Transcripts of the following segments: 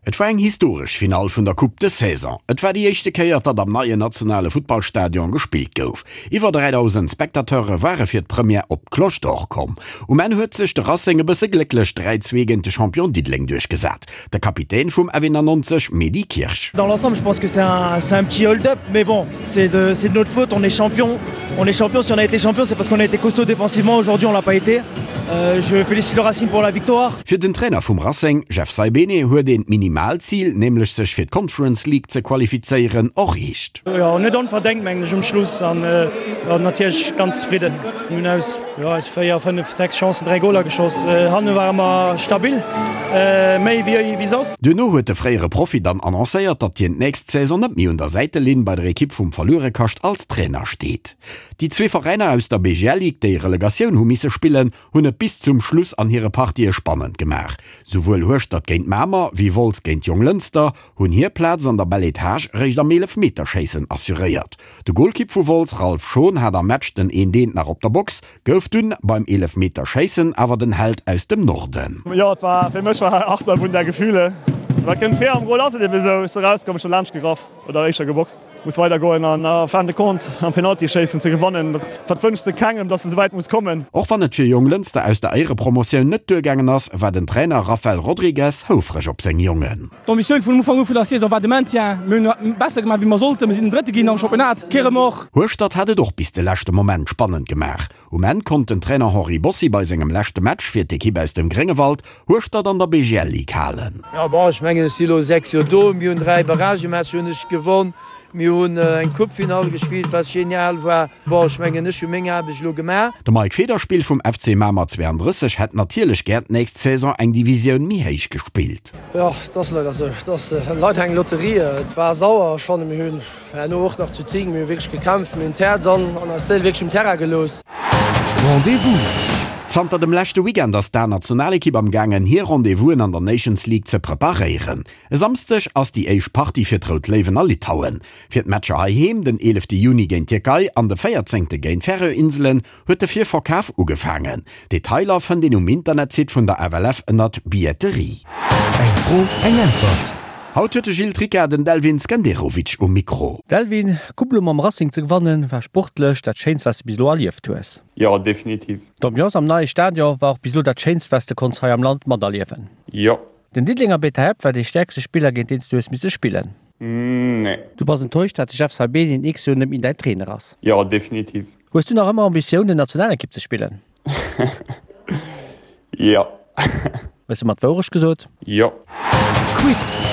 Et war eng historesch Finall vun der Coupe de Saison. Et war déi éischte Kéier, datt am neien nationale Futtballstadion gespillt gouf. Iwwer 3.000 Spectateure ware fir d'Première op d'Cloche d'Or komm. Um Enn huet sech de Racing e bësse glécklech 3, 2 géint de Champion Diddeleng duerchgesat. De Kapitän vum F91 Mehdi Kirsch. Dans l'ensemble je pense que c'est un, c'est un petit hold-up mais bon c'est de, c'est de notre faute, on est champion, on est champion, si on a été champion c'est parce qu'on a été costaud défensivement, aujourd'hui on l'a pas été. Euh, je félicite le Racing pour la victoire. Fir den Trainer vum Racing, Jeff Saibene, huet een d'Minimalzil, nämlech sech fir d'Conference League ze qualifizéieren, erreecht. Jo, net onverdengt mengen ech um Schluss an natierlech ganz zefridden. Mir hunn aus jo aus 4, 5, 6 Chancen 3 Goler geschoss. Hanne ware mer stabil, méi wéi wéi soss. Duerno huet de fréiere Profi dann annoncéiert, datt hien d'nächst Saison net méi un der Säitelinn bei der Ekipp vum Verluerekascht als Trainer steet. Déi zwee Veräiner aus der BGL Ligue, déi Relegatioun hu misse spillen, hunn et bis zum Schluss an hire Partië spannend gemaach. Souwuel Hueschtert géint Mamer wéi Wolz géint Jonglënster hunn hir Plaz an der Belle Etage réischt am Eelefmeterschéissen assuréiert. De Golkipp vu Wolz, Ralph Schon, hat am Match den een Deent nach op der Box, gouf dunn beim Eelefmeterschéissen awer den Held aus dem Norden. Jo, et war fir mech war Achterbunn der Gefühle. Wat kënnt vir? Am Gol ass et ebe sou. Ech si rauskomm, ech hu laanscht gegraff oder éischter geboxt. Muss weider goen an en fin de compte am Penaltyschéissen ze gewannen, dat wënschs de kengem, dass de souwäit muss kommen. Och wann et fir Jonglënster aus der Éierepromotioun net duergaangen ass, war den Trainer Rafael Rodrigues houfreg op seng Jongen. D'Ambitioun vun Ufank u vun der Saison war de Maintien. Mir hunn besser gemaach wéi mer sollten. Mir sinn den Drëtte ginn am Championnat. Kee Remords. Hueschtert hat et och bis de leschte Moment spannend gemaach. Um Enn konnt den Trainer Henri Bossi bei sengem leschte Match fir d'Ekipp aus dem Gréngewald Hueschtert an der BGL Ligue halen. Jo bon, ech mengen ech si lo 6 Joer do. Mir hunn 3 Barragematcher hunn ech gewonn. Mir hunn eng Coupefinall gespillt, wat genial war. Bon, ech mengen ech hu meng Aarbecht elo gemaach. De Mike Federspiel vum FC Mamer 32 hätt natierlech gär d'nächst Saison eng Divisioun méi héich gespillt. Jo, et ass leider esou. Et ass leider eng Lotterie. Et war sauer. Ech fanne mir hunn herno och nach zu 10, mir hu wierklech gekämpft, mir hunn d'Häerz an an eis Séil wierklech um Terrain gelooss. Rendez-vous! Zanter dem leschte Weekend ass d'A-Nationalekipp am gaangen hir Rendez-vousen an der Nations League ze preparéieren. E Samsdeg ass déi éischt Partie fir d'Rout Léiwen a Litauen. Fir d'Matcher heiheem, den 11 Juni géint d'Tierkei an de 14 géint d'Färöer-Inselen, huet de Virverkaf ugefaangen. Detailer fënnt een um Internetsite vun der FLF ënnert Billetterie. Eng Fro, eng Äntwert. Haut huet de Gilles Tricca den Delvin Skenderovic um Mikro. Delvin, d'Coupe elo mam Racing ze gewannen, war sportlech dat Schéinst wat s de bis elo erlieft hues. Jo, definitiv. D'Ambiance am neie Stadion war och bis elo dat Schéinst wat s de konns hei am Land materliewen. Jo. Den Diddelenger Beta Hep war dee stäerkste Spiller géint deen s du hues misse spillen. Nee. Du bass enttäuscht dat de Jeff Saibene den X-Joer net méi däin Trainer ass. Jo, definitiv. Hues du nach ëmmer Ambitiounen Nationalekipp ze spillen? Jo. Hues de mer d'Wourecht gesot? Jo. Quiz!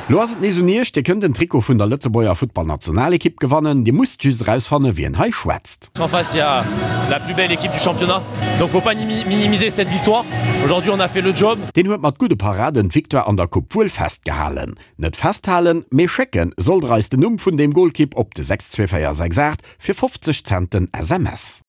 Lo ass et nees un iech, Dir kënnt en Trikot vun der Lëtzebuerger Futtballnationalekipp gewannen. Dir musst just erausfannen, wien hei schwätzt. En face il y a la plus belle équipe du championnat donc faut pas minimiser cette victoire, aujourd'hui on a fait le job. Deen huet mat gudde Paraden d'Victoire an der Coupe wuel festgehalen. Net festhalen, mee schécken sollt der eis den Numm vun deem Golkipp op de 62468 fir 50 Cent den SMS.